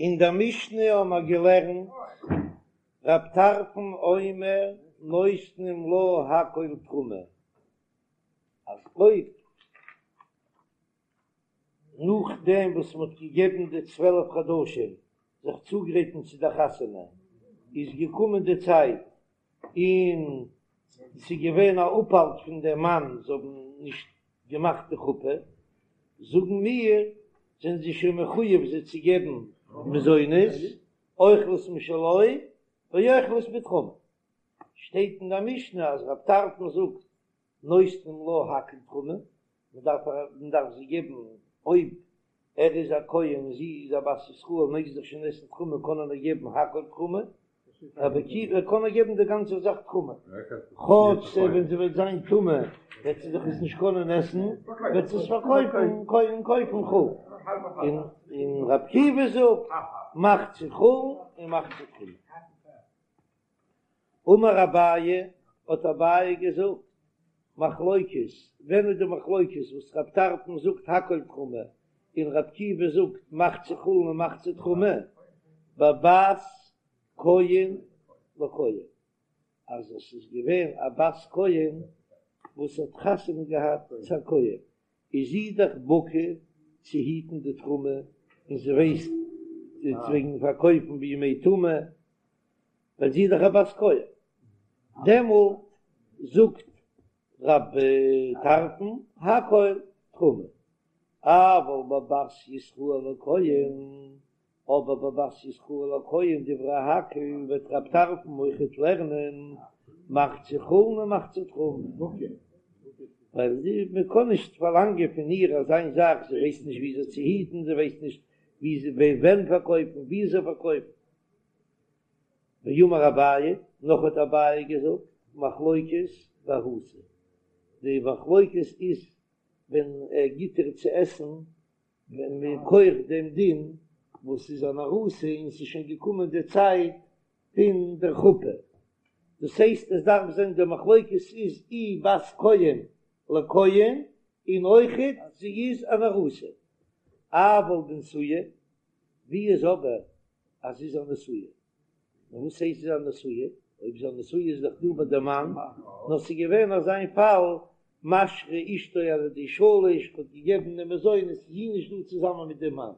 אין דער משנה האבן מיר געלערנט, רב טרפון אומר נותנים לה הכל תרומה, אז אויב נאכדעם וואס מען האט געגעבן די 12 חדשים זיך צוגרייטן צו דער חתונה, איז געקומען די צייט און ס'איז געווען א אפהאלט פון דעם מאן זיי האבן נישט געמאכט די חופה, זאגן מיר, זענען זיי שוין מחויב זיי צו געבן מזונות, אוכלות משלו ואוכלות בתרומה. שטייט אין דער משנה אז רב טרפון זאגט נותנים לה הכל תרומה, מען דארף מען דארף זיי געבן, אויב ער איז א כהן און זי איז א בת ישראל מעג זי דאך שוין עסן תרומה קען ער איר געבן הכל תרומה, רבי עקיבא קען ער געבן די גאנצע זאך תרומה, כאטש ווען זי וועט זיין טמא וועט זי דאך עס נישט קענען עסן, וועט זי עס פארקויפן און קויפן חולין, און רבי עקיבא זאגט מחצה חולין און מחצה תרומה. אמר אביי, האט אביי געזאגט, מחלוקת, ווען איז די מחלוקת וואס רב טרפון זאגט הכל תרומה און רב עקיבא זאגט מחצה חולין און מחצה תרומה, בבת כהן לכהן, אז עס איז געווען א בת כהן וואס האט חתונה געהאט צו א כהן, איז זי דאך בקי צו היטן די תרומה און זי ווייסט וועגן פארקויפן בימי טומאה, ווייל זי איז דאך א בת כהן, דעמאלט זאגט רב טרפון הכל תרומה, אבל בבת ישראל לכהן, אבער בבת ישראל לכהן דברי הכל וועט רב טרפון אויכעט לערנען מחצה חולין ומחצה תרומה, ווייל מען קען נישט פארלאנגען פון איר אזא זאך, זי ווייסט נישט וויאזוי צו היטן, זי ווייסט נישט ווען פארקויפן, וויאזוי פארקויפן. ואמר אביי, נאך האט אביי געזאגט, מחלוקת בארוסה, די מחלוקת איז ווען ער גיט איר צו עסן מכח דעם דין וואס איז אן ארוסה און ס'איז שוין געקומען די צייט פון דער חופה, דאס הייסט עס דארף זיין די מחלוקת איז אי בת כהן לכהן און אויכעט זי איז אן ארוסה, אבל בנשואה, ווי איז אבער אז זי איז א נשואה? און וואס הייסט זי איז א נשואה? אויב זי איז א נשואה איז דאך דא ביי די מאן, נאר ס'איז געווען אזא איין פאל, משרה אשתו על ידי שליש, האט געגעבן די מזונות, איז זי נישט דא צוזאמען מיט דעם מאן,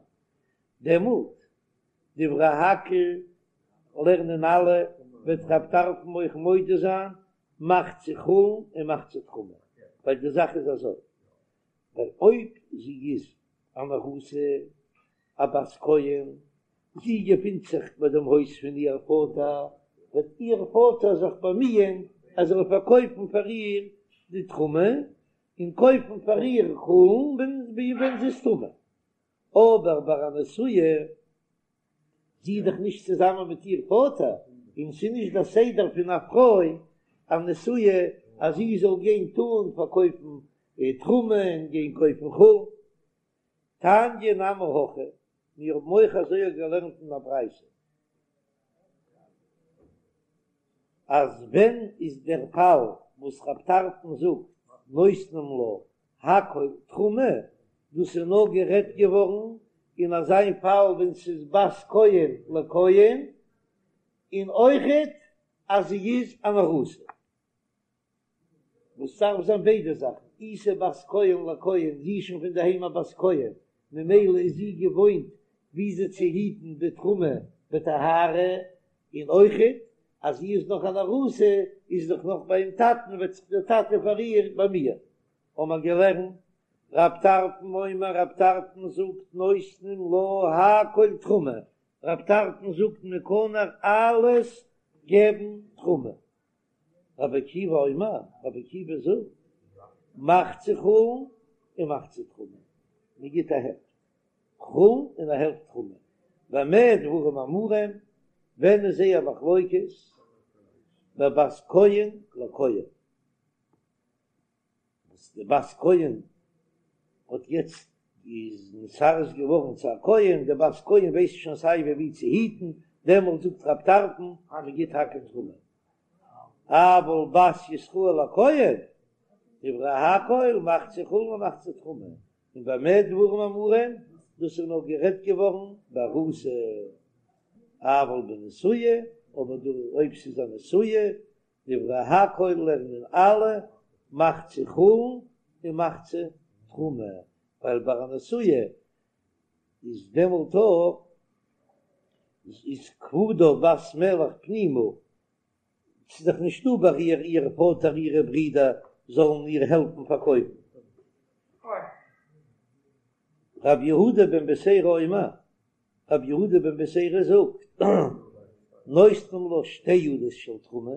דעמאלט דברי הכל לערנען אלע, וועט רב טרפון אויך מודה זיין, מחצה חולין און מחצה תרומה, ווייל די זאך איז אזוי, ווייל אויב זי איז אן ארוסה, א בת כהן, זי געפינט זיך ביי דעם הויז פון איר פאטער, וועט איר פאטער זיך באמיען אז ער זאל פארקויפן פאר איר די תרומה, און קויפן פאר איר חולין ווען זי איז טמא. אבער ביי א נשואה, זי איז דאך נישט צוזאמען מיט איר פאטער, און ס'איז נישט דער סדר פון א פרוי א נשואה אז זי זאל גיין טאן פארקויפן תרומה און גיין קויפן חולין. תניא נמי הכי, מיר האבן אויך אזוי געלערנט אין א ברייתא, אז ווען איז דער פאל וואס רב טרפון זאגט נותנים לה הכל תרומה, דאס איז נאר גערעדט געווארן אין אזא פאל ווען ס'איז בת כהן לכהן, און אויכעט אז זי איז אן ארוסה. וואס דארף זיין ביידע זאכן, אי ס'איז בת כהן לכהן, זי איז שוין פון די היים א בת כהן, ממילא איז זי געוואוינט וויאזוי צו היטן די תרומה בטהרה, און אויכעט אז זי איז נאך אן ארוסה, איז דאך נאך ביים טאטן, וועט זיך דער טאטע פאר איר באמיען. האבן מיר געלערנט, רב טרפון אומר, רב טרפון זאגט נותנים לה הכל תרומה, רב טרפון זאגט מען קען איר אלעס געבן תרומה, רבי עקיבא אומר, רבי עקיבא זאגט, מחצה חולין און מחצה תרומה, מען גיט א העלפט חולין און א העלפט תרומה, במה דברים אמורים, ווען איז זייער מחלוקת, בבת כהן לכהן. וואס די בת כהן האט יעצט איז נתארס געווארן צו א כהן, די בת כהן ווייסט שוין סיי ווי ווי צו היטן, דעמאלט זאגט רב טרפון אז מען גיט הכל תרומה, אבל בת ישראל לכהן, דברי הכל מחצה חולין ומחצה תרומה, און במה דברים אמורים? דאס איז נאר גערעדט געווארן בארוסה, אבל בנשואה, אבער דא אויב ס'איז א נשואה, דברי הכל לערנען אלע מחצה חולין און מחצה תרומה, ווייל ביי א נשואה איז דעמאלט אויך איז כבודה בת מלך פנימה, ס'איז דאך נישטא ביי איר איר פאטער אירע ברידער זאלן איר העלפן פארקויפן. רב יהודה בן בתירא אומר, רב יהודה בן בתירא זאגט, נותנים לה שתי ידות של תרומה,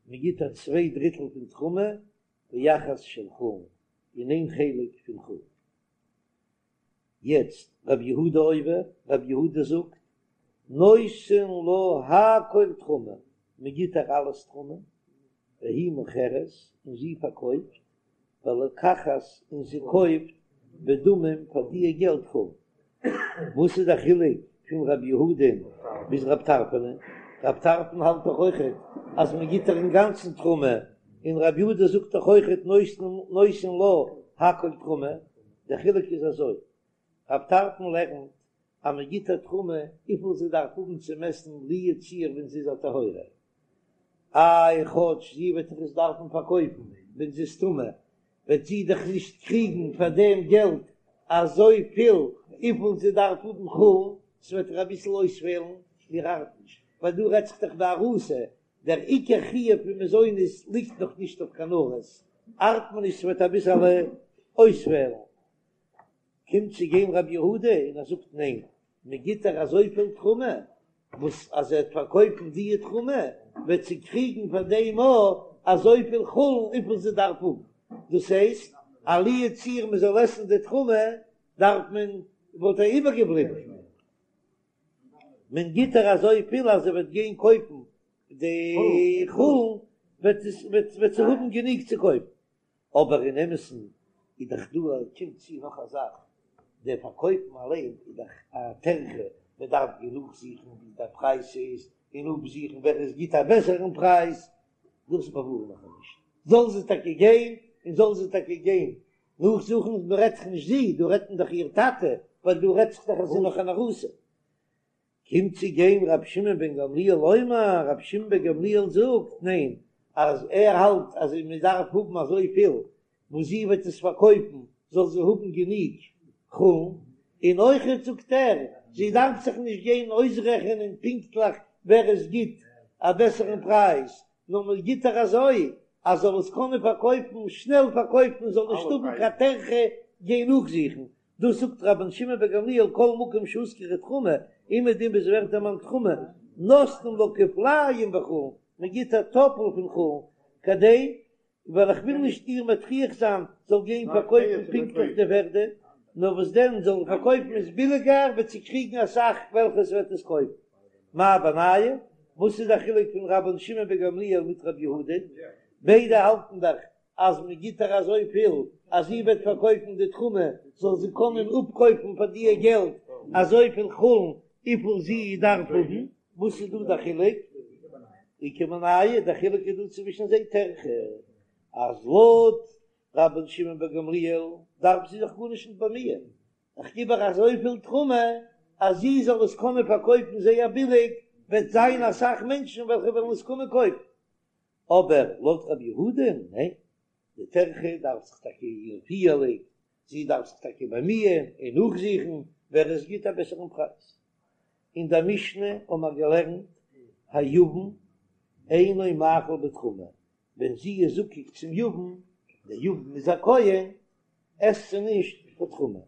מען גיט איר צוויי דריטל פון תרומה, ואחת של חולין, און איין חלק פון חולין. יעצט רב יהודה אומר, רב יהודה זאגט, נותן לה הכל תרומה, מען גיט איר אלעס תרומה, והיא מוכרת, און זי פארקויפט, ולוקחת, און זי קויפט, בדמים פאר דיע געלט חולין. וואס איז דער חילוק פון רב יהודה'ן ביז רב טרפון? רב טרפון האלט דאך אויכעט אז מען גיט איר אינגאנצן תרומה, און רב יהודה זאגט דאך אויכעט נותן לה הכל תרומה. דער חילוק איז אזוי, רב טרפון לערנט אז מען גיט איר תרומה וויפיל זי דארף האבן צום עסן לו יצוייר ווען זי איז א טהורה, איי כאטש זי וועט דאך עס דארפן פארקויפן ווען זי איז טמא, וועט זי דאך נישט קריגן פאר דעם געלט אזויפיל וויפיל זי דארף האבן חולין, ס'וועט איר אביסל אויספעלן, מיר ארט נישט, ווייל דא רעדט זיך דאך בארוסה, דער עיקר חיוב פון מזונות ליגט נאך נישט אויף קיין ארוס, ארט מיר נישט ס'וועט אביסעלע אויספעלן. קומט צו גיין רבי יהודה און ער זאגט ניין, מען גיט איר אזויפיל תרומה, וואס אז זי וועט פארקויפן די תרומה וועט זי קריגן פאר דעם אויך אזויפיל חולין וויפיל זי דארף האבן, דאס הייסט אז לו יצוייר מען זאל עסן די תרומה דארף מען וואלט איר איבערגעבליבן, מען גיט איר אזויפיל אז זי וועט גיין קויפן די חולין וועט וועט זי האבן גענוג צו קויפן. אבער אין אמת'ן איז דאך דא קומט צו נאך א זאך, דער פארקויפן אליין איז דאך א טרחה, מען דארף גיין נאכזוכן ווי דער פרייז איז, און אפזוכן ווער עס גיט א בעסערן פרייז, דאס באווארן איך נישט, זאל זי טאקע גיין און זאל זי טאקע גיין נאכזוכן, מען רעדט דאך נישט זי, דא רעדט מען דאך איר טאטע, ווייל דא רעדט זיך דאך אז זי איז נאך אן ארוסה. קומט צו גיין רבי שמעון בן גמליאל אומר, רבי שמעון בן גמליאל זאגט, ניין, אז ער האלט אז מען דארף האבן אזוי פיל וואס זי וועט עס פארקויפן זאל זי האבן גענוג חולין, און אויכעט זאגט ער, זי דארף זיך נישט גיין אויסרעכענען פונקטליך ווער עס גיט א בעסערן פרייז, נאר מען גיט איר אזוי אז זאל עס קענען פארקויפן, שנעל פארקויפן, זאל נישט האבן קיין טרחה גיין נאכזוכן, דאס זאגט רבן שמעון בן גמליאל כל מקום שהוזכרה תרומה, אומעדום וואו ס'ווערט דערמאנט תרומה, נותנים לה כפליים בחולין, מען גיט א טאפל פון חולין, כדי, ווייל איך וויל נישט איר מטריח זיין זאל גיין פארקויפן פונקטליך די ווערדע, נאר וואס דען זאל פארקויפן עס ביליגער וועט זי קריגן אסאך וועלכע ס'וועט עס קויפן. מאי בינייהו? וואס איז די חילוק פון רבן שמעון בן גמליאל מיט רבי יהודה? ביידע האלטן דאך אז מען גיט איר אזויפיל אז זי וועט פארקויפן די תרומה זאל זי קענען אפקויפן פאר דיע געלט אזויפיל חולין וויפיל זי דארף האבן, וואס איז דא די חילוק? איכא בינייהו, די חילוק איז דא צווישן זיי טרחה אז לויט רבן שמעון בן גמליאל דארף זי זיך גארנישט נישט באמיען, איך גיב איר אזויפיל תרומה אז זי זאל עס קענען פארקויפן זייער ביליג, וועט זיין אסאך מענטשן וועלכע וועלן עס קומען קויפן. אבער לויט רבי יהודה, ניין, די טרחה דארף זיך טאקע איר פיהלען, זי דארף זיך טאקע באמיען און נאכזוכן ווער עס גיט א בעסערן פרייז. אין דער משנה האבן מיר געלערנט היבם אינו מאכיל בתרומה, ווען זי איז זקוק צום יבם, דער יבם איז א כהן, עסט זי נישט קיין תרומה.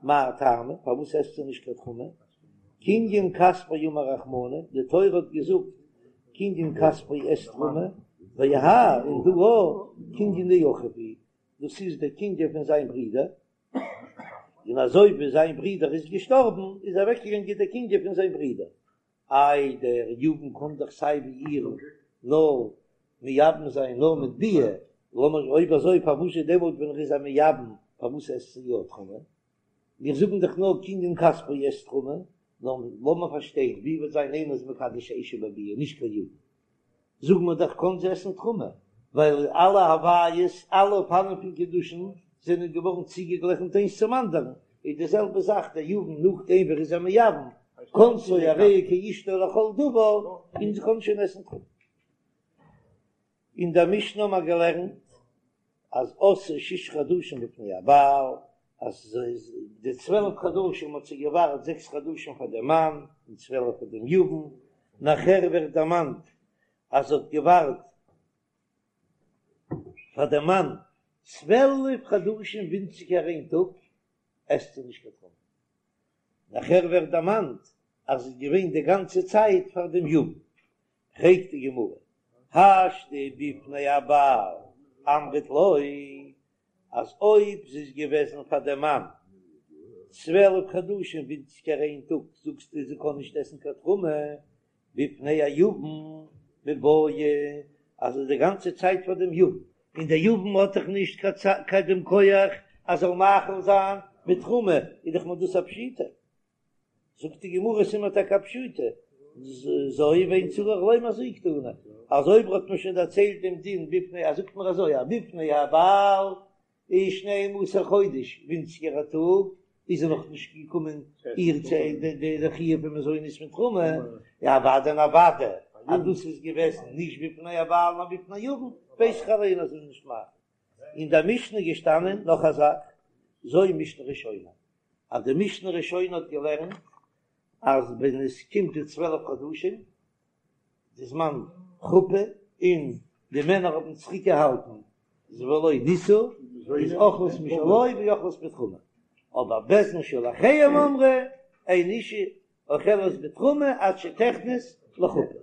מאי טעמא, פארוואס עסט זי נישט קיין תרומה? קנין כספו אמר רחמנא, די תורה האט געזאגט קנין כספו עסט תרומה, והאי און דא אויך קנין דאחיו הוא, דאס איז דער קנין פון זיין ברודער, און אזוי ווי זיין ברודער איז געשטארבן איז אוועקגעגאנגען דער קנין פון זיין ברודער, איי דער יבם קען דאך סיי ווי איר נאר מייבם זיין נאר מיט ביאה, לאמיר אויב אזוי פארוואס איז דעמאלט ווען ער איז א מייבם פארוואס עסט זי יא תרומה? מיר זאגן דאך נאר קנין כספו עסט תרומה, נאר לאמיר פארשטיין ווי וועט זיין איינער איז מקדש אשה בביאה נישט קיין יבם, זאגן מיר דאך קען זי עסן תרומה, ווייל אלע הוויות אלע אופנים פון קידושין זענען געווארן צוגעגליכנט איינס צום אנדערן, איז די זעלבע זאך דער יבם נאכדעם ווי ער איז איר מייבם, כנסה הרי היא כאשתו לכל דבר, און זי קען שוין עסן תרומה. אין דער משנה האבן מיר געלערנט אז עשאה ששה חדשים בפני הבעל, אז די 12 חדשים האט זי געווארט זעקס חדשים פאר דעם מאן און 12 פאר דעם יבם, נאכער ווערט דערמאנט אז זי האט געווארט פאר דעם מאן 12 חדשים ווינציגער איין טאג, עסט זי נישט קיין תרומה. נאכער ווערט דערמאנט אז זי איז געווען די גאנצע צייט פאר דעם יבם. פרעגט די גמרא, השתא בפני הבעל אמרת לא, אז אויב זי איז געוועזן פאר דעם מאן 12 חדשים ווינציגער איין טאג, זאגסטו זי קען נישט עסן קיין תרומה, בפני היבם מיבעיא, אז זי איז די גאנצע צייט פאר דעם יבם, און דער יבם האט דאך נישט קיין דעם כח אז זאל מאכיל זיין בתרומה, איז דאך מיר דאס א פשיטא. זאגט די גמרא ס'איז מיר טאקע א פשיטא, זו ואין צריך לומר זו קתני, אז אויב האט מען שוין דערציילט דעם דין בפני אז זאגט מען אזוי אז בפני הבעל איז שנים עשר חודש ווינציגער א טאג איז ער נאך נישט געקומען איר צו די חיוב פון מזונות מיט תרומה, אוודאי און אוודאי אז דאס איז געוועזן נישט בפני הבעל נאר בפני יבם, ווייס איך אליין אז ער איז נישט מאכיל. אין דער משנה איז געשטאנען נאך א זאך, זו משנה ראשונה, אז די משנה ראשונה האט געלערנט אז ווען עס קומט די 12 חדשים, די זמן חופה, און די מענער האבן צוריק געהאלטן ולא נישאו, איז אוכלת משלו ואוכלת בתרומה, אבער בית דין של אחריהם אמרו, אין אשה אוכלת בתרומה עד שתכנס לחופה.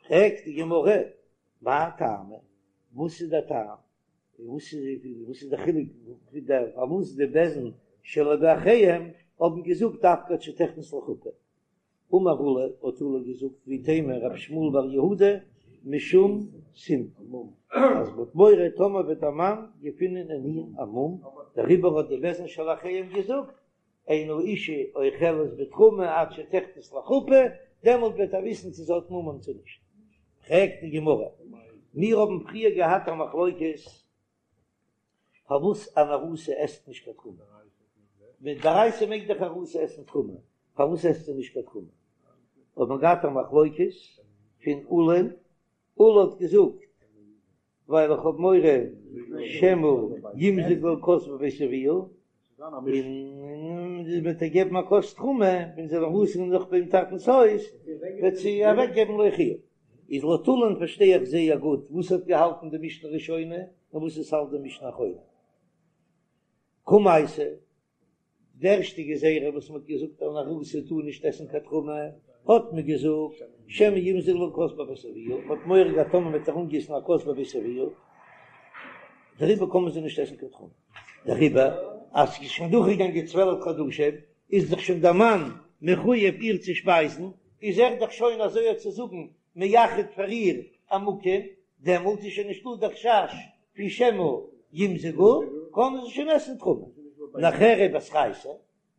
פרעגט די גמרא, מאי טעמא? וואס איז דער טעם? וואס איז וואס איז דער חילוק פון דער פארוואס די בית דין שלא באחריהם האבן געזאגט דווקא עד שתכנס לחופה? אמר עולא, האט עולא געזאגט ואיתימא רב שמואל בר יהודה משום סימפון, אז מ'האט מורא טאמער וועט דער מאן געפינען אין איר א מום, דעריבער האט די בית דין של אחריהם געזאגט אין האשה אוכלת בתרומה עד שתכנס לחופה, דעמאלט וועט ער וויסן צו זי האט מומים צו נישט. פרעגט די גמרא, מיר האבן פריער געהאט א מחלוקת פארוואס אן ארוסה עסט נישט קיין תרומה, מדאורייתא מעג דאך ארוסה עסן תרומה, פארוואס עסט זי נישט קיין תרומה? האט מען געהאט א מחלוקת פון עולא, עולא האט געזאגט ווייל איך האב מורא שמא ימזגו לה כוס בבית אביה, און מען וועט איר געבן א כוס תרומה, ווען זי איז ארוסה נאך ביים טאטנ'ס הויז, וועט זי אוועק געבן לאחיה. איז לויט עולא'ן פארשטיי איך זייער גוט וואס האט געהאלטן די משנה ראשונה און וואס עס האלט די משנה אחרונה. קמייתא, די ערשטע גזירה וואס מ'האט געזאגט אן ארוסה טאר נישט עסן קיין תרומה, האט מען געזאגט שמא ימזגו לה כוס בבית אביה, מ'האט מורא געהאט טאמער מ'וועט איר אנגיסן א כוס בבית אביה, דעריבער קען מען זי נישט עסן קיין תרומה. דעריבער אז ס'איז שוין דורכגעגאנגען 12 חדשים, איז דאך שוין דער מאן מחויב איר צו שפייזן, איז ער דאך שוין אזוי צו זאגן מייחד פאר איר א מקום, דעמאלט איז שוין נישטא דער חשש פון שמא ימזגו, קענען זיי שוין עסן תרומה. נאכער ובתרייתא,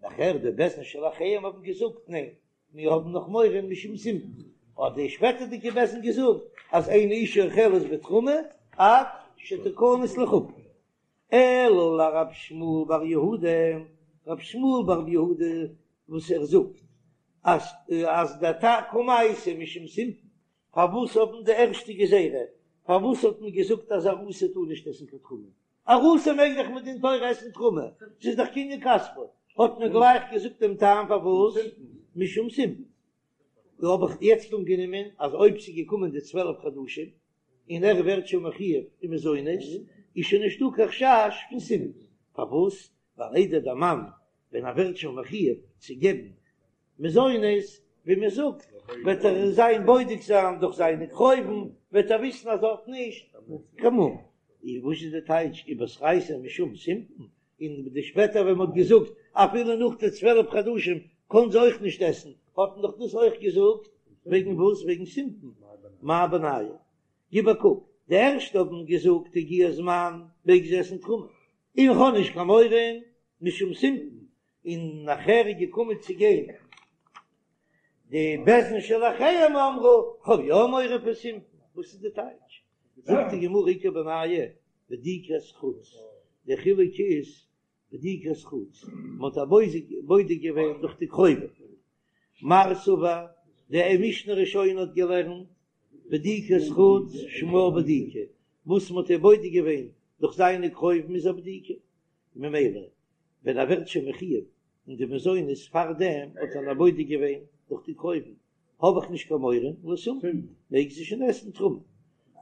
נאכער די בית דין של אחריהם האבן געזאגט ניין, מיר האבן נאך מורא משום סימפון, האט די שפעטערדיגע בית דין געזאגט אז אין אשה אוכלת בתרומה עד שתכנס לחופה. אלא לרב שמואל בר יהודה, רב שמואל בר יהודה וואס ער זאגט אז אז דער טעם קמייתא משום סימפון, פארוואס האבן די ערשטע גזירה, פארוואס האט מען געזאגט אז ארוסה טאר נישט עסן קיין תרומה? ארוסה מעג דאך מדין תורה עסן תרומה, ס'איז דאך קנין כספו, האט מען גלייך געזאגט דעם טעם פארוואס, משום סימפון. דא האב איך יעצט אנגענומען אז אויב ס'איז געקומען די 12 חדשים און ער ווערט שוין מחויב אין מזונות, איז שוין נישטא קיין חשש פון סימפון. פארוואס? ווייל איידער דער מאן ווען ער ווערט שוין מחויב צו געבן מזונות, ווי מען זאגט, וועט ער זיין בודק זיין דורך זיינע קרובים, וועט ער וויסן אז ער האט נישט קיין מום. איז וואס איז די טייטש ובתרייתא משום סימפון? און די שפעטער ווען מען האט געזאגט אפילו נאך די 12 חדשים קען זי אויך נישט עסן, האט מען דאך דאס אויך געזאגט וועגן וואס? וועגן סימפון. מאי בינייהו? גיב א קוק, די ערשטע האבן געזאגט הגיע הזמן מעג זי עסן תרומה, און איך האב נישט קיין מורא משום סימפון, און נאכער איז געקומען צו גיין די בית דין של אחריהם אמרו, כ'האב יא מורא פון סימפון, וואס איז די טייטש? זאגט די גמרא איכא בינייהו בדיקת חוץ, די חילוק איז. בדיקת חוץ, מען האט איר בודק געווען דורך די קרובים. מר סבר, די משנה ראשונה האט געלערנט, בדיקת חוץ שמה בדיקה, וואס מען האט איר בודק געווען דורך זיינע קרובים איז א בדיקה, ממילא ווען ער ווערט שוין מחויב אין די מזונות פארדעם האט ער איר בודק געווען דורך די קרובים, האב איך נישט קיין מורא לסומטין, מעג זי שוין עסן תרומה.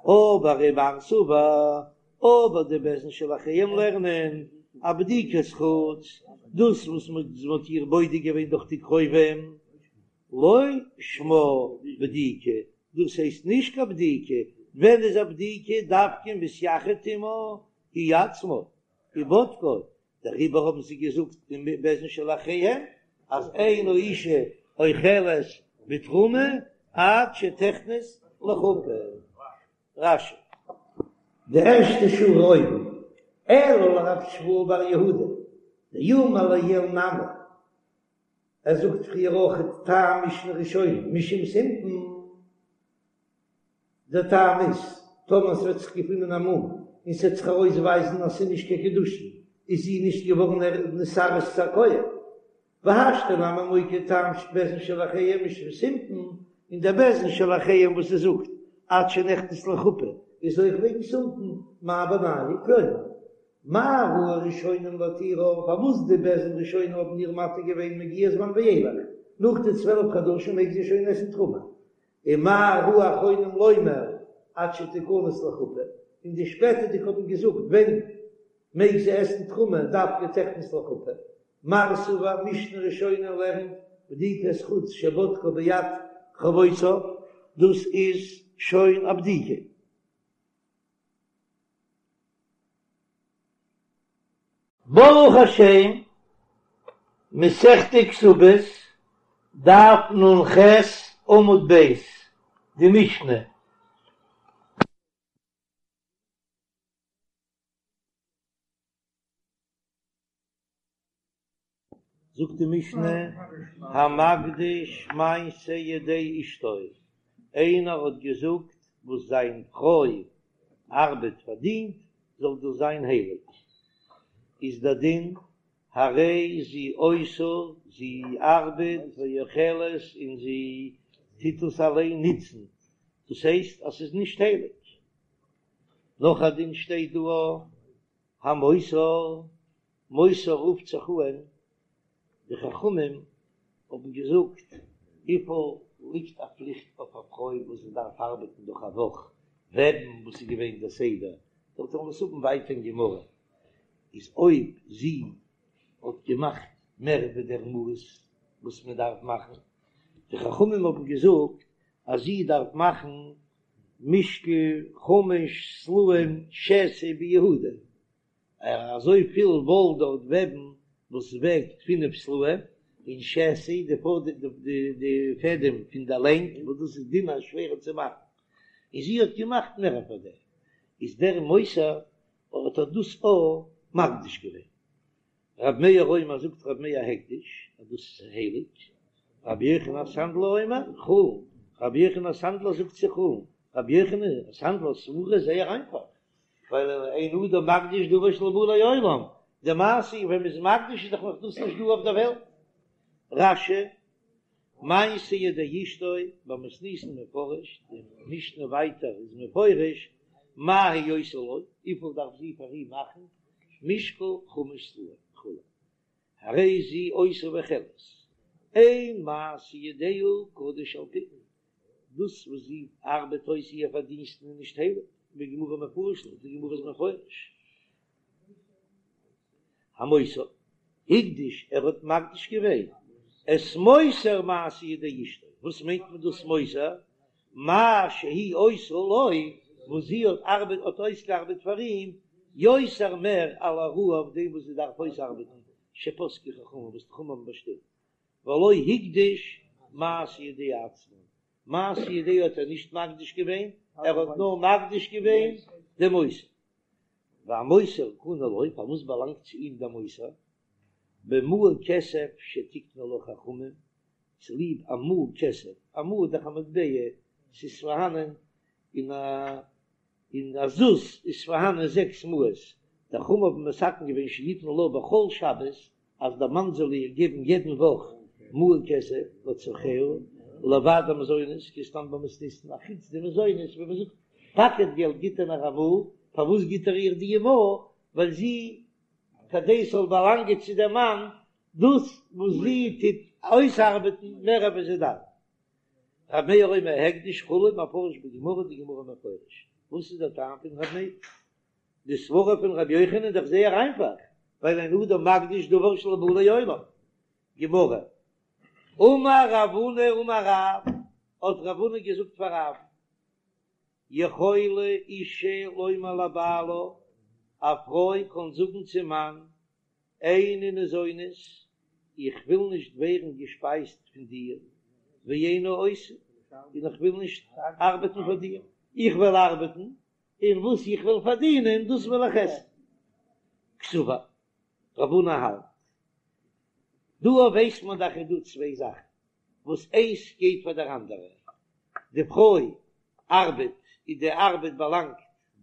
אבער ומר סבר, אבער די בית דין של אחריהם לערנען א בדיקת חוץ, דאס וואס מען האט איר בודק געווען דורך די קרובים, לא שמה בדיקה, דאס הייסט נישט קיין בדיקה, ווען איז א בדיקה דווקא מתייחד עמה הוא עצמו ובודקה, דעריבער האבן זיי געזאגט אין בית דין של אחריהם אז אין האשה אוכלת בתרומה עד שתכנס לחופה. רש"י. די ערשטע שורה אויבן, אלא לרב שמואל בר יהודה, דאמר לעיל נמי, ער זאגט פריער אויך טעם משנה ראשונה משום סימפון. דער טעם איז, טאמער ס'וועט זיך געפינען א מום און ס'וועט זיך ארויסווייזן אז ס'איז נישט קיין קידושין, איז זי נישט געווארן נתארס צו א כהן. והשתא נמי מוקי טעם בית דין של אחריהם משום סימפון, און דער בית דין של אחריהם וואס ער זאגט עד שנכנס לחופה איז אויך וועגן סימפון, מאי בינייהו כלומר, מה ראו הראשונים להתירה, פארוואס די בית דין ראשונים האבן איר מתיר געווען מגיע זמן ואילך, נאך די 12 חדשים מעג זי שוין עסן תרומה, ומה ראו אחרונים לומר עד שתכנס לחופה, און די שפעטערדיגע האבן געזאגט ווען מעג זי עסן תרומה דווקא תכנס לחופה, מר סבר משנה ראשונה לערנט בדיקת חוץ שבדקה ביד קרובותיו, דאס איז שוין א בדיקה. ברוך השם, מסכת כתובות, דף נ"ח עמוד ב', די משנה. זאגט די משנה, המקדיש מעשה ידי אשתו, איינער האט געזאגט וואס זיין פרוי ארבעט פארדינט זאל דאס זיין הייליג, איז דער דין הרי זו עושה, זי ארבעט ואוכלת און זי טוט עס אליין נוצן, דאס הייסט אז ס'איז נישט הייליג. נאך א דין שטייט דא, המותר, מותר רופט זיך אן, די חכמים האבן געזאגט, וויפיל ליגט א פליכט אויף א פרוי וואס זי דארף ארבעטן דורך א וואך, וועבן וואס איז געווען דער סדר, דארט וועלן מיר עס האבן ווייטער אין גמרא, איז אויב זי האט געמאכט מער ווי דער מאס וואס מען דארף מאכן, די חכמים האבן געזאגט אז זי דארף מאכן משקל חמש סלעים שתי ביהודה, אזוי פיל וואל דארט וועבן וואס וועגט פינף סלעים, און שתי די די פעדעם פון די לענג וואס דאס איז דינער שווערער צו מאכן, און זי האט געמאכט מער פאר דעם, איז דער מותר האט ער דאס אויך מקדיש געווען. רב מאיר אומר זאגט רב מאיר הקדש אז דאס איז הייליג, רבי יוחנן הסנדלר אומר חולין, רבי יוחנן הסנדלר זאגט ס'איז חולין, רבי יוחנן הסנדלר'ס סברא איז זייער איינפאך, ווייל אין אדם מקדיש דבר שלא בא לעולם, די מעשה ווען מ'איז מקדיש איז דאך נאך דאס נישט דא אויף דער וועלט. רש"י, מעשה ידי אשתו, במתניתין מפרש, די משנה ווייטער איז מפרש, מה היא עושה לו, וויפיל דארף זי פאר אים מאכן, משקל חמש סלעים וכו', הרי זו עושה ואוכלת, אין מעשה ידיה קדוש על פי, דאס וואס זי ארבעט אויס איר פארדינסטן איז נישט הייליג, בגמרא מפרש לה, די גמרא איז מפרש. המותר, הקדיש, ער האט מקדיש געווען את מותר מעשה ידי אשתו, וואס מיינט מען דאס מותר? מה שהיא עושה לו, וואס זי האט ארבעט האט אויסגעארבעט פאר אים, יותר מער על הראוי אויף דעם וואס זי דארף אויסארבעטן, שפסקו חכמים וואס די חכמים האבן באשטימט, ולא הקדיש מעשה ידיה עצמן, מעשה ידיה האט ער נישט מקדיש געווען, ער האט נאר מקדיש געווען דעם מותר. והמותר קנוי לו, פארוואס באלאנגט צו אים דער מותר? במעה כסף שתיקנו לה חכמים, צוליב א מעה כסף, א מעה איז דאך א מטבע, ס'איז פארהאנען אין א אין א זוז איז פארהאנען זעקס מעות. די חכמים האבן מתקן געווען שיתן לה בכל שבת אז דער מאן זאל איר געבן יעדן וואך מעה כסף לצרכיה לבד המזונות כדתנן במתניתין אחוץ די מזונות ווי מען זאגט פאקעט געלט גיט ער נאר א מעה, פארוואס גיט ער איר די מעה? ווייל זי כדי ס'זאל באלאנגען צו דעם מאן דאס וואס זי טוט אויסארבעטן מער ווי זי דארף. ר' מאיר אומר הקדש כו' מפרש בגמרא די גמרא מפרש וואס איז דער טעם פון ר' מאיר? די סברה פון ר' יוחנן איז דאך זייער איינפאך, ווייל אין אדם מקדיש דבר שלא בא לעולם. גמרא, אמר רב הונא אמר רב, האט רב הונא געזאגט פאר רב, יכולה אישה לומר לבעלה, א פרוי קען זאגן צום מאן, איני ניזונית, איך וויל נישט ווערן געשפייזט פון דיר, ואיני עושה, און איך וויל נישט ארבעטן פאר דיר, איך וועל ארבעטן, און וואס איך וועל פארדינען דאס וועל איך עסן. קסבר, רב הונא האלט. דא ווייסט מען דאך איז דא צוויי זאכן וואס איינס גייט פאר דער אנדערע, די פרוי ארבעט און די ארבעט באלאנגט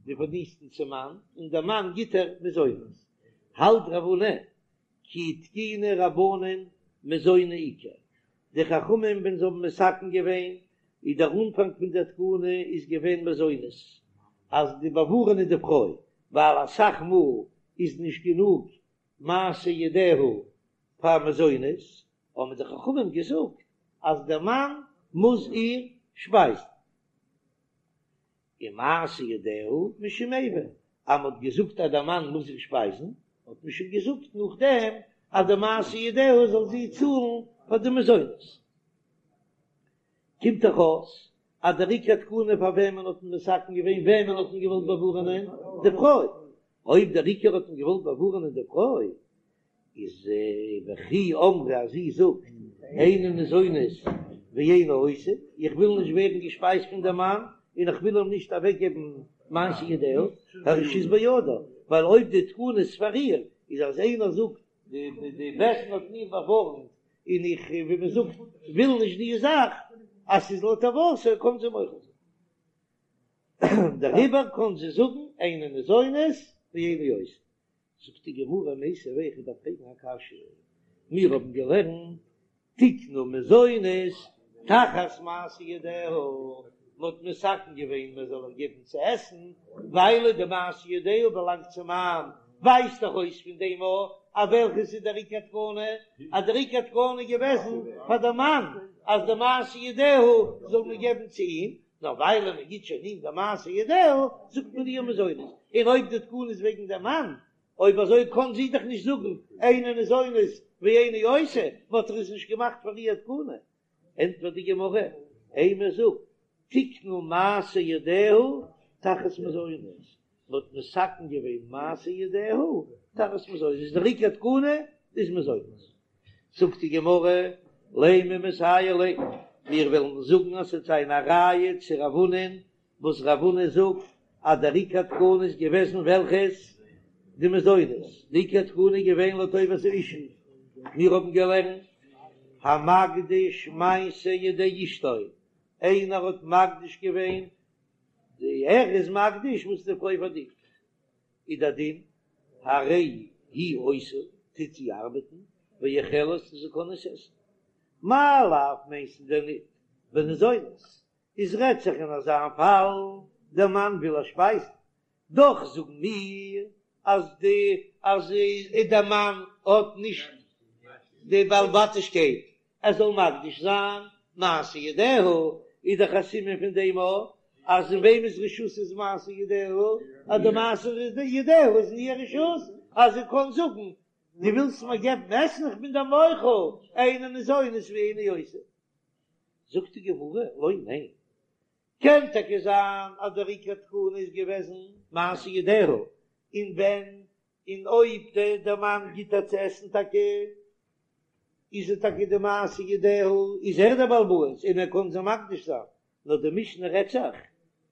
די פארדינסטן צום מאן, און דער מאן גיט איר מזונות. האלט רב הונא כי תקינו רבנן מזוני עיקר, די חכמים ווען זיי האבן מתקן געווען איז דער אנפאנג פון דער תקנה איז געווען מזונות, אז די באווארענען די פרוי, ווייל אסאך מאל איז נישט גענוג מעשה ידיה פאר מזונות, האבן די חכמים געזאגט אז דער מאן מוז איר שפייזן. און מעשה ידיה משום איבה, אז מען האט געזאגט אז דער מאן מוז איר שפייזן, האט מען שוין געזאגט נאכדעם אז די מעשה ידיה זאל זי צאלן פאר די מזונות. קומט דאך אויס אז דער עיקר תקנה פאר וועמען האט מען מתקן געווען, וועמען האט מען געוואלט באווארענען? די פרוי. אויב דער עיקר האט מען געוואלט באווארענען די פרוי, איז וכי אמרה אז זי זאגט איני ניזונית ואיני עושה, איך וויל נישט ווערן געשפייזט פון דעם מאן און איך וויל אים נישט אוועקגעבן מעשה ידיה, הרשות בידה, ווייל אויב די תקנה איז פאר איר, איז אז איינער זאגט די בית דין האט מיר באווארנט און איך ווי מען זאגט וויל נישט די זאך, אז ס'איז לטובתה קען זי מוחל זיין. דעריבער קען זי זאגן איני ניזונית ואיני עושה. זאגט די גמרא מיתיבי איך דארף פרעגן א קשיא, מיר האבן געלערנט תיקנו מזונות תחת מעשה ידיה, מען האט מתקן געווען מען זאל איר געבן צו עסן ווייל די מעשה ידיה באלאנגט צום מאן, ווייזט דאך אויס פון דעם אז וועלכעס איז דער עיקר תקנה, אז דער עיקר תקנה איז געוועזן פאר די מאן אז די מעשה ידיה זאל מען געבן צו אים, נאר ווייל מען גיט שוין אים די מעשה ידיה, זאגט מען איר מזונות, און אויב די תקנה איז וועגן דעם מאן, אויב אזוי קאן זי דאך נישט זאגן איני ניזונית ואיני עושה, מען האט דאך עס נישט געמאכט פאר איר תקנה. ענטפערט די גמרא, אימא זאג, תיקנו מעשה ידיה תחת מזונות, מען האט מתקן געווען מעשה ידיה תחת מזונות, איז דער עיקר תקנה איז מזונות. זאגט די גמרא, לימא מסייע ליה, מיר וועלן זאגן אז ס'וועט זיין א ראיה צו רב הונא'ן, וואס רב הונא זאגט אז דער עיקר תקנה איז געוועזן וועלכעס? די מזונות, די עיקר תקנה איז געווען לטובת האשה, מיר האבן געלערנט המקדיש מעשה ידי אשתו, איינער האט מקדיש געווען, די ער איז מקדיש וואס די פרוי פארדינט, איז דער דין, הרי היא עושה, טוט זי ארבעטן, ואוכלת און זי קען עס עסן. מאי לאו מיינסטו דען ניט בניזונת, איז רעדט זיך אין אזא פאל, דער מאן וויל איר שפייזן, דאך זאגן מיר אז די אז דער מאן האט נישט די בעל בתישקייט ער זאל מקדיש זיין מעשה ידיה, איז דאך א סימן פון דעם אויך אז אין וועמענס רשות איז מעשה ידיה, אז די מעשה ידיה איז אין איר רשות, אז זי קען זאגן דו ווילסט מיר געבן עסן איך בין דיר מוחל, איני ניזונית ואיני עושה. זאגט די גמרא, לא ניין, קען טאקע זיין אז דער עיקר תקנה איז געוועזן מעשה ידיה, און ווען און אויב דער מאן גיט איר צו עסן טאקע איז ער טאקע די מעשה ידיה, איז ער דער בעל הבית און ער קען זי מקדיש זיין, נאר די משנה רעדט זיך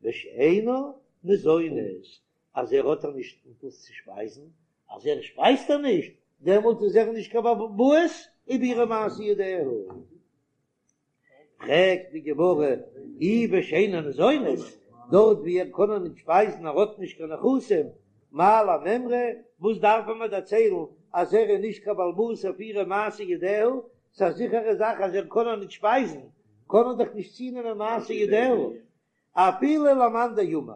בשאינה ניזונית אז ער האט איר נישט מיט וואס צו שפייזן, אז ער שפייזט איר נישט דעמאלט איז ער נישט קיין בעל הבית איבער אירע מעשה ידיה. פרעגט די גמרא, אי בשאינה ניזונית, דארט ווי ער קען איר נישט שפייזן ער האט נישט קיין נכסים, מאי למימרא, וואס דארף מען מיר דערציילן אז ער איז נישט קיין בעל הבית אויף אירע מעשה ידיה, ס'איז א זיכערע זאך אז ער קען איר נישט שפייזן, קען ער דאך נישט צונעמען מעשה ידיה, אפילו למאן דאמר,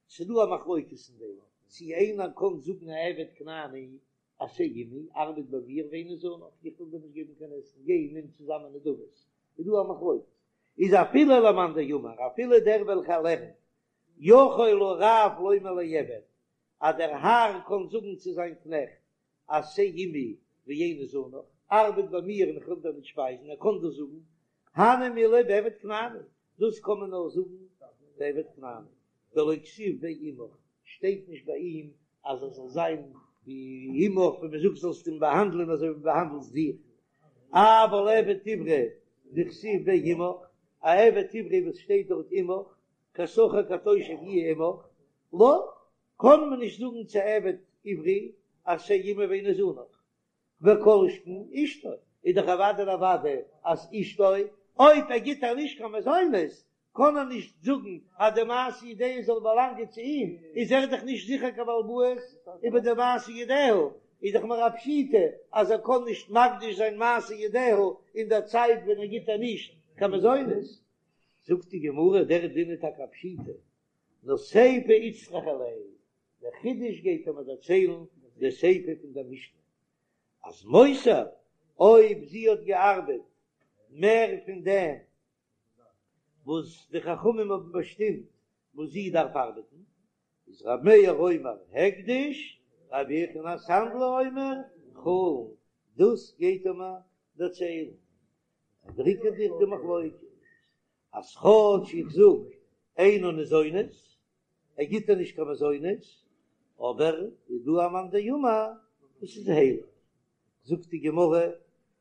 ס'דא א מחלוקת אין דעם, צי איינער קען זאגן א עבד כנעני עשה עמי, ארבעט ביי מיר ואיני זונך, איך וויל דיר נישט געבן קיין עסן, גיי נעם צוזאמען נדבות, איז דא א מחלוקת, איז אפילו למאן דאמר, אפילו דער וועלכער לערנט, יכול הרב לומר לעבד, אז דער האר קען זאגן צו זיין קנעכט, עשה עמי ואיני זונך, ארבעט ביי מיר און איך וועל דיר נישט שפייזן, ער קען דאס זאגן, הני מילי בעבד כנעני, דאס קען מען נאר זאגן ביי עבד כנעני, דלא כתיב ביה עמך, שטייט נישט ביי אים אז ער זאל זיין ווי עמך, ווען מען זאגט זאלסט אים באהאנדלען אזוי ווי באהאנדלסט דיך, אבל עבד עברי דכתיב ביה עמך, א עבד עברי וואס שטייט דארט עמך, כשכיר כתושב יהיה עמך, לא, קען מען נישט זאגן צו עבד עברי עשה עמי ואיני זונך, וכל שכן אשתו, איז דאך אוודאי און אוודאי אז אשתו, אויב ער גיט איר נישט קיין מזונות, קען ער נישט זאגן אז די מעשה ידיה זאל באלאנגען צו אים, איז ער דאך נישט זיכער קיין בעל הבית איבער די מעשה ידיה, איז דאך מיר א פשיטא אז ער קען נישט מקדיש זיין מעשה ידיה אין דער צייט ווען ער גיט איר נישט קיין מזונות. זאגט די גמרא, דער דין איז טאקע א פשיטא, נאר סיפא איצטריכא ליה, דער חידוש גייט ער מיר דערציילן די סיפא פון דער משנה, אז מותר, אויב זי האט געארבעט מער פון דעם וואס די חכמים האבן באשטימט וואס זי דארף ארבעטן, איז ר' מאיר אומר הקדש, ר' יוחנן הסנדלר אומר חולין, דאס גייט ער מיר דערציילן, דער עיקר די מחלוקת אז כאטש איך זאג אינה ניזונת, ער גיט איר נישט קיין מזונות, אבער איז דא א מאן דאמר וואס איז הייליג. זאגט די גמרא,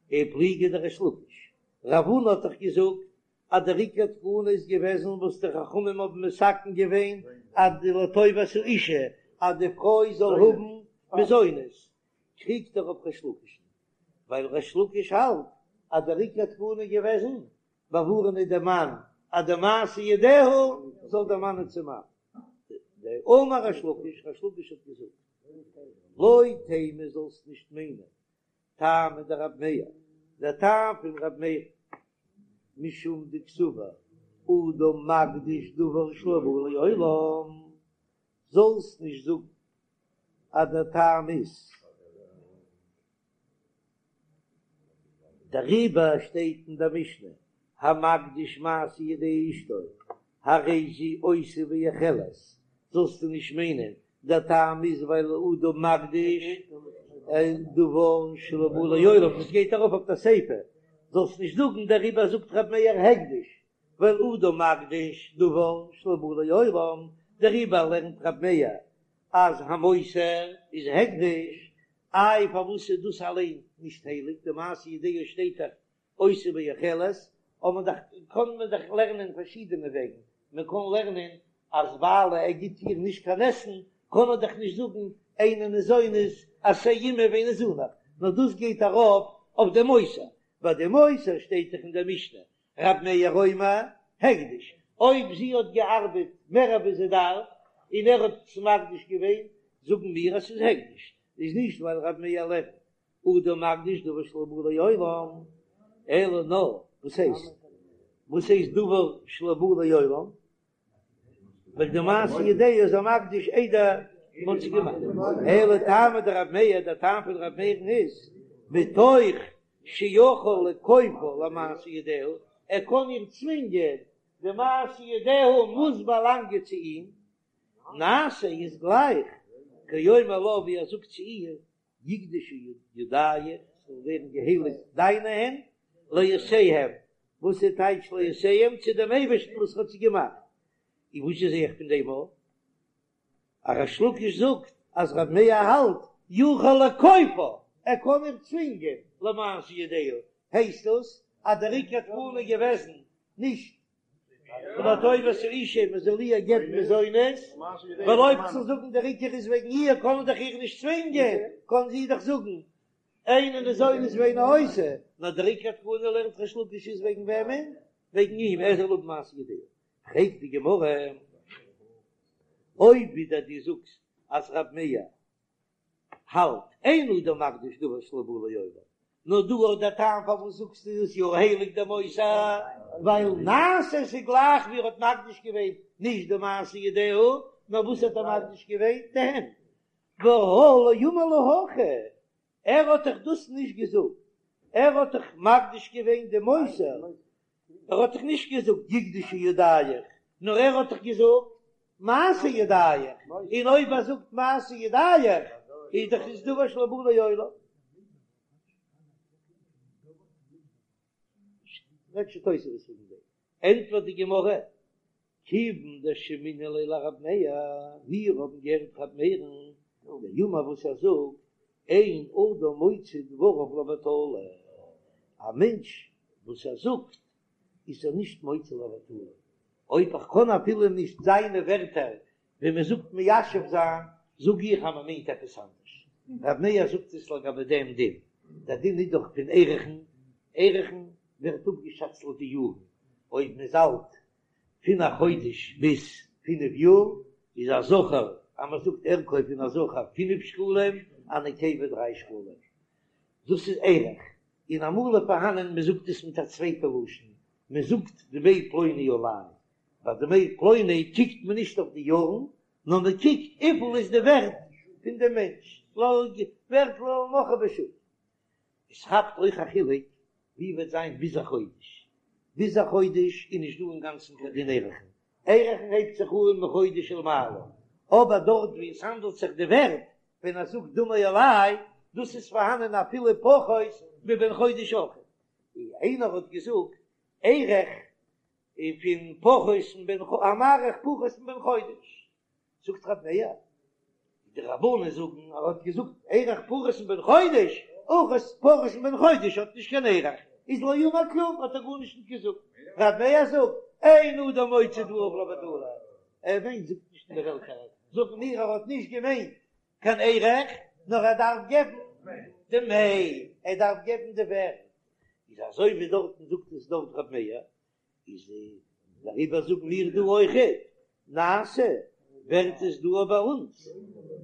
ופליגא דריש לקיש, רב הונא האט דאך געזאגט אז דער עיקר תקנה איז געוועזן וואס די חכמים האבן מתקן געווען אז די לטובת האישה אז די פרוי זאל האבן מזונות, קריגט ער אויף ריש לקיש'ן, ווייל ריש לקיש האלט אז דער עיקר תקנה איז געוועזן באווארענען דעם מאן אז די מעשה ידיה זאל דערמאנען צום מאן. דאמר ריש לקיש, ריש לקיש האט געזאגט, לא תימא זאלסט נישט מיינען טעמא דרב מאיר, דער טעם פון רב מאיר, משום דקסבר אדם מקדיש דבר שלא בא לעולם, זאלסט נישט זאגן אז דער טעם איז דעריבער שטייט אין דער משנה, המקדיש מעשה ידי אשתו, הרי זו עושה ואוכלת, זאלסטו נישט מיינען דער טעם איז ווייל אדם מקדיש דבר שלא בא לעולם, דאס גייט ארויף אויף דער סיפא, זאלסט נישט זאגן דעריבער זאגט ר' מאיר הקדש, ווייל אדם מקדיש דבר שלא בא לעולם, דעריבער לערנט ר' מאיר אז המותר איז הקדש, איי פארוואס איז דאס אליין נישט הייליג, די מעשה ידיה שטייט דאך עושה ואוכלת, אבער דאך קען מען דאך לערנען פארשידענע וועגן, מען קען לערנען אז ווייל ער גיט איר נישט קיין עסן קען ער דאך נישט זאגן אינה ניזונת עשה עמי ואיני זונך, נאר דאס גייט ארויף אויף די מותר, ביי די מותר שטייט דאך אין דער משנה רב מאיר אומר הקדש, אויב זי האט געארבעט מער אווי זי דארף און ער האט עס מקדיש געווען, זאגן מיר אז ס'איז הקדש, איז נישט ווייל רב מאיר לערנט אדם מקדיש דבר שלא בא לעולם, אלא נאר וואס הייסט וואס הייסט דבר שלא בא לעולם? ווייל די מעשה ידיה איז ער מקדיש איידער מ'האט זי געמאכט, אלא טעמא דרב מאיר, דער טעם פון רב מאיר'ן איז, מתוך שיכול לכופה למעשה ידיה, ער קען איר צווינגען, די מעשה ידיה מוז באלאנגען צו אים, נעשה איז גלייך, כאומר לה ווי ער זאגט צו איר, יקדשו ידיך, ס'זאל ווערן געהייליגט דיינע הענט, לעושיהם, וואס איז טייטש לעושיהם? צו דעם אייבערשטן וואס האט זיי געמאכט. און וואס זע איך פון דעם אויף? אז ריש לקיש זאגט אז רב מאיר האלט יכול לכופה, ער קען איר צווינגען למעשה ידיה, הייסט דאס אז דער עיקר תקנה איז געוועזן נישט לטובת האישה מען זאל איר געבן מזונות, ווייל אויב צו זאגן דער עיקר איז וועגן איר קען מען דאך איר נישט צווינגען, קען זי דאך זאגן אינה ניזונת ואינה עושה, נאר דער עיקר תקנה לערנט ריש לקיש איז וועגן וועמען? וועגן אים, ער זאל האבן מעשה ידיה. פרעגט די גמרא, אויב ווידער דו זאגסט. אז רב מאיר האלט אין אדם מקדיש דבר שלא בא לעולם, נאר דא האט דער טעם פארוואס זאגסטו עס יא הייליג דער מותר, ווייל נעשה ס'איז גלייך ווי ער האט מקדיש געווען נישט די מעשה ידיה, נאר וואס האט ער מקדיש געווען? די הענט. והא לא אמר לה הכי, ער האט דאך דאס נישט געזאגט, ער האט דאך מקדיש געווען די מותר, ער האט דאך נישט געזאגט יקדשו ידיך, נאר ער האט דאך געזאגט מעשה ידיך, און אויב ער זאגט מעשה ידיך איז דאך עס דבר שלא בא לעולם. רעדט שוין תוספות וועגן דעם, ענטפערט די גמרא, כיוון דשמעינן ליה לרב מאיר, מיר האבן געהערט רב מאיר'ן דאמר וואס ער זאגט, אין אדם מוציא דבריו לבטלה, א מענטש וואס ער זאגט איז ער נישט מוציא לבטלה, אויב איך קען אפילו נישט זיינע ווערטער ווי מען זאגט מיישב זיין, זאג איך אז מען מיינט עפעס אנדערש. רב מאיר זאגט עס לגבי דעם דין, דער דין איז דאך פון ערכין, ערכין ווערט אפגעשאצט לויט די יארן, אויב מען איז אלט פון א חודש ביז פינף יאר איז א זכר, אז מען זאגט ערכו פון א זכר פינף שקלים, א נקבה דריי שקלים, דאס איז ערך, און אמאל איז פארהאנען מען זאגט עס מיט א צווייטע לשון, מען זאגט דמי פלוני עלי, ביי דמי פלוני קוקט מען נישט אויף די יארן, נאר מען קוקט וויפיל איז די ווערט פון דעם מענטש, ווערט למוכרו בשוק. עס כאפט אויך א חילוק ווי וועט זיין ביז א חודש, ביז א חודש איז נישט דא אינגאנצן קיין דין ערכין, ערכין הייבט זיך אן מחודש ולמעלה, אבער דארט ווי עס האנדלט זיך די ווערט, ווען ער זאגט דמי עלי, דאס איז פארהאנען אפילו פחות מבן חודש אויך, ווי איינער האט געזאגט ערך פון פחות מבן המעריך פחות מבן חודש, זאגט רב מאיר, די רבנן זאגן ער האט געזאגט ערך פחות מבן חודש, אויך פחות מבן חודש האט נישט קיין ערך, איז לא אמר כלום האט ער גארנישט נישט געזאגט, רב מאיר זאגט אין אדם מוציא דבריו לבטלה, ער מיינט זאגט נישט אין די וועלט אריין, זאגן מיר ער האט נישט געמיינט קיין ערך, נאר ער דארף געבן דמי, ער דארף געבן די ווערט, איז אזוי ווי דארטן זאגט עס דארט רב מאיר, איז דעריבער זאגן מיר דא אויכעט נעשה ווערט עס דא ביי אונז,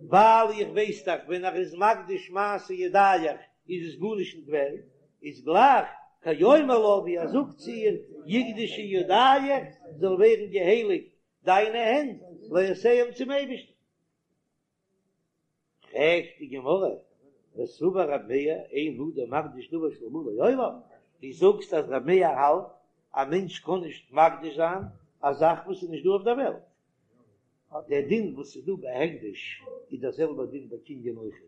ווייל איך ווייס דאך ווען ער איז מקדיש מעשה ידיך איז עס גארנישט נישט ווערט, איז גלייך כאומר לה ווי ער זאגט צו איר יקדשו ידיך זאל ווערן געהייליגט דיינע הענט לעושיהם צום אייבערשטן. פרעגט די גמרא, וסבר רב מאיר אין אדם מקדיש דבר שלא בא לעולם, דו זאגסט אז רב מאיר האלט א מענטש קען נישט מקדיש זיין א זאך וואס איז נישט דא אויף דער וועלט, דער דין וואס איז דא ביי הקדש איז דער זעלבער דין ביי קנין אויכעט,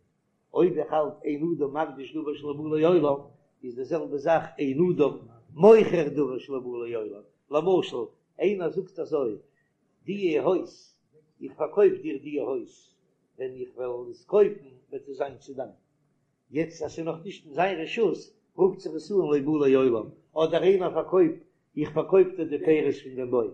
אויב איך האלט אין אדם מקדיש דבר שלא בא לעולם איז די זעלבע זאך אין אדם מוכר דבר שלא בא לעולם, למשל איינער זאגט אזוי דיע הויז, איך פארקויף דיר דיע הויז, ווען איך וועל עס קויפן וועט עס זיין צו דיין. יעצט אז ס'איז נאך נישט אין זיין רשות, רופט זיך עס אן לא בא לעולם, אדער איינער פארקויפט, איך פארקויף דיר די פירות פון דעם בוים.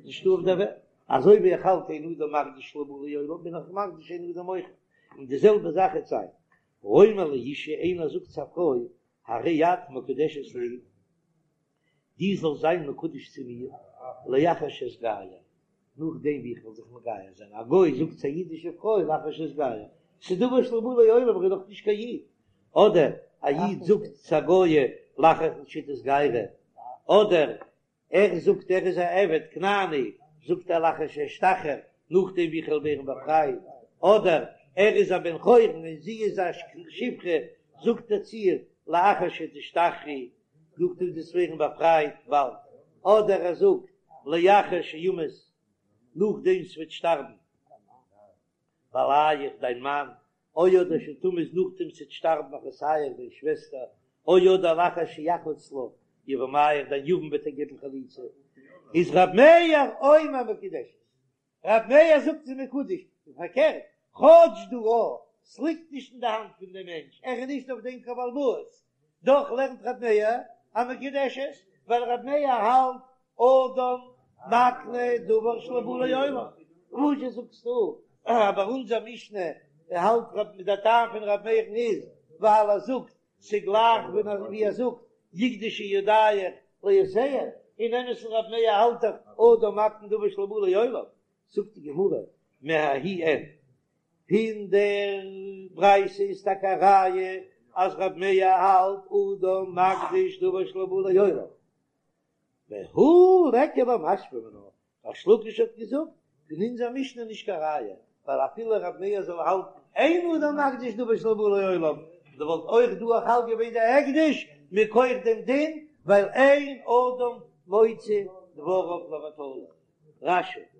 נישטא אויף דער וועלט. אזוי ווי איך האלט אין אדם מקדיש שלא בא לעולם, בין איך מקדיש אין אדם מוכר. און די זעלבע זאך איז זיין. האומר לאשה, איינער זאגט צו א פרוי, הרי את מקודשת לי, דו זאלסט זיין מקודש צו מיר, לאחר שאתגייר, נאכדעם ווי איך וועל זיך מגייר זיין, א גוי זאגט צו א אידישע פרוי לאחר שאתגייר, ס'איז דבר שלא בא לעולם, איך בין נאך נישט קיין איד, אדער א איד זאגט צו א גויה לאחר שתתגיירי, אדער ער זאגט ער איז א עבד כנעני, זאגט ער לאחר שאשתחרר, נאכדעם ווי איך וועל ווערן באפרייט, אדער ער איז א בן חורין און זי איז א שפחה, זאגט ער צו איר לאחר שתשתחררי, נאכדעם דו וועסט ווערן באפרייט באלד, אדער ער זאגט לאחר שימות, נאכדעם ס'וועט שטארבן בעליך דיין מאן, או אדער שתמות נאכדעם ס'וועט שטארבן אחותיך דיין שוועסטער, או אדער לאחר שיחלוץ לך יבמיך דיין יבם וועט דיר געבן חליצה, איז ר' מאיר אומר מקודשת. ר' מאיר זאגט ס'איז מקודש, און פארקערט, כאטש דא א, ס'ליגט נישט אין די האנט פון דעם מענטש, ער איז נישט אויף דעם קיין בעל הבית, דאך לערנט ר' מאיר אז מקודשת, ווייל ר' מאיר האלט אדם מקנה דבר שלא בא לעולם. וואזשע זאגסטו אז ביי אונזער משנה האלט ר' דער טעם פון ר' מאיר'ן איז ווייל ער זאגט ס'גלייך ווי ער זאגט יקדשו ידיך לעושיהם, אין אמת'ן ר' מאיר האלט דאך אדם מקנה דבר שלא בא לעולם, זאגט די גמרא. מההיא אין. פון דער ברייתא איז טאקע א ראיה אז רב מאיר האלט אדם מקדיש דבר שלא בא לעולם, והא ליכא למשמע מינה, ריש לקיש האט געזאגט פון אונזער משנה נישט קיין ראיה, ווייל אפילו רב מאיר זאל האלטן אין אדם מקדיש דבר שלא בא לעולם, דא וואלט אויך דא חל געווען דער הקדש מכח דעם דין, ווייל אין אדם מוציא דבריו לבטלה. רש"י.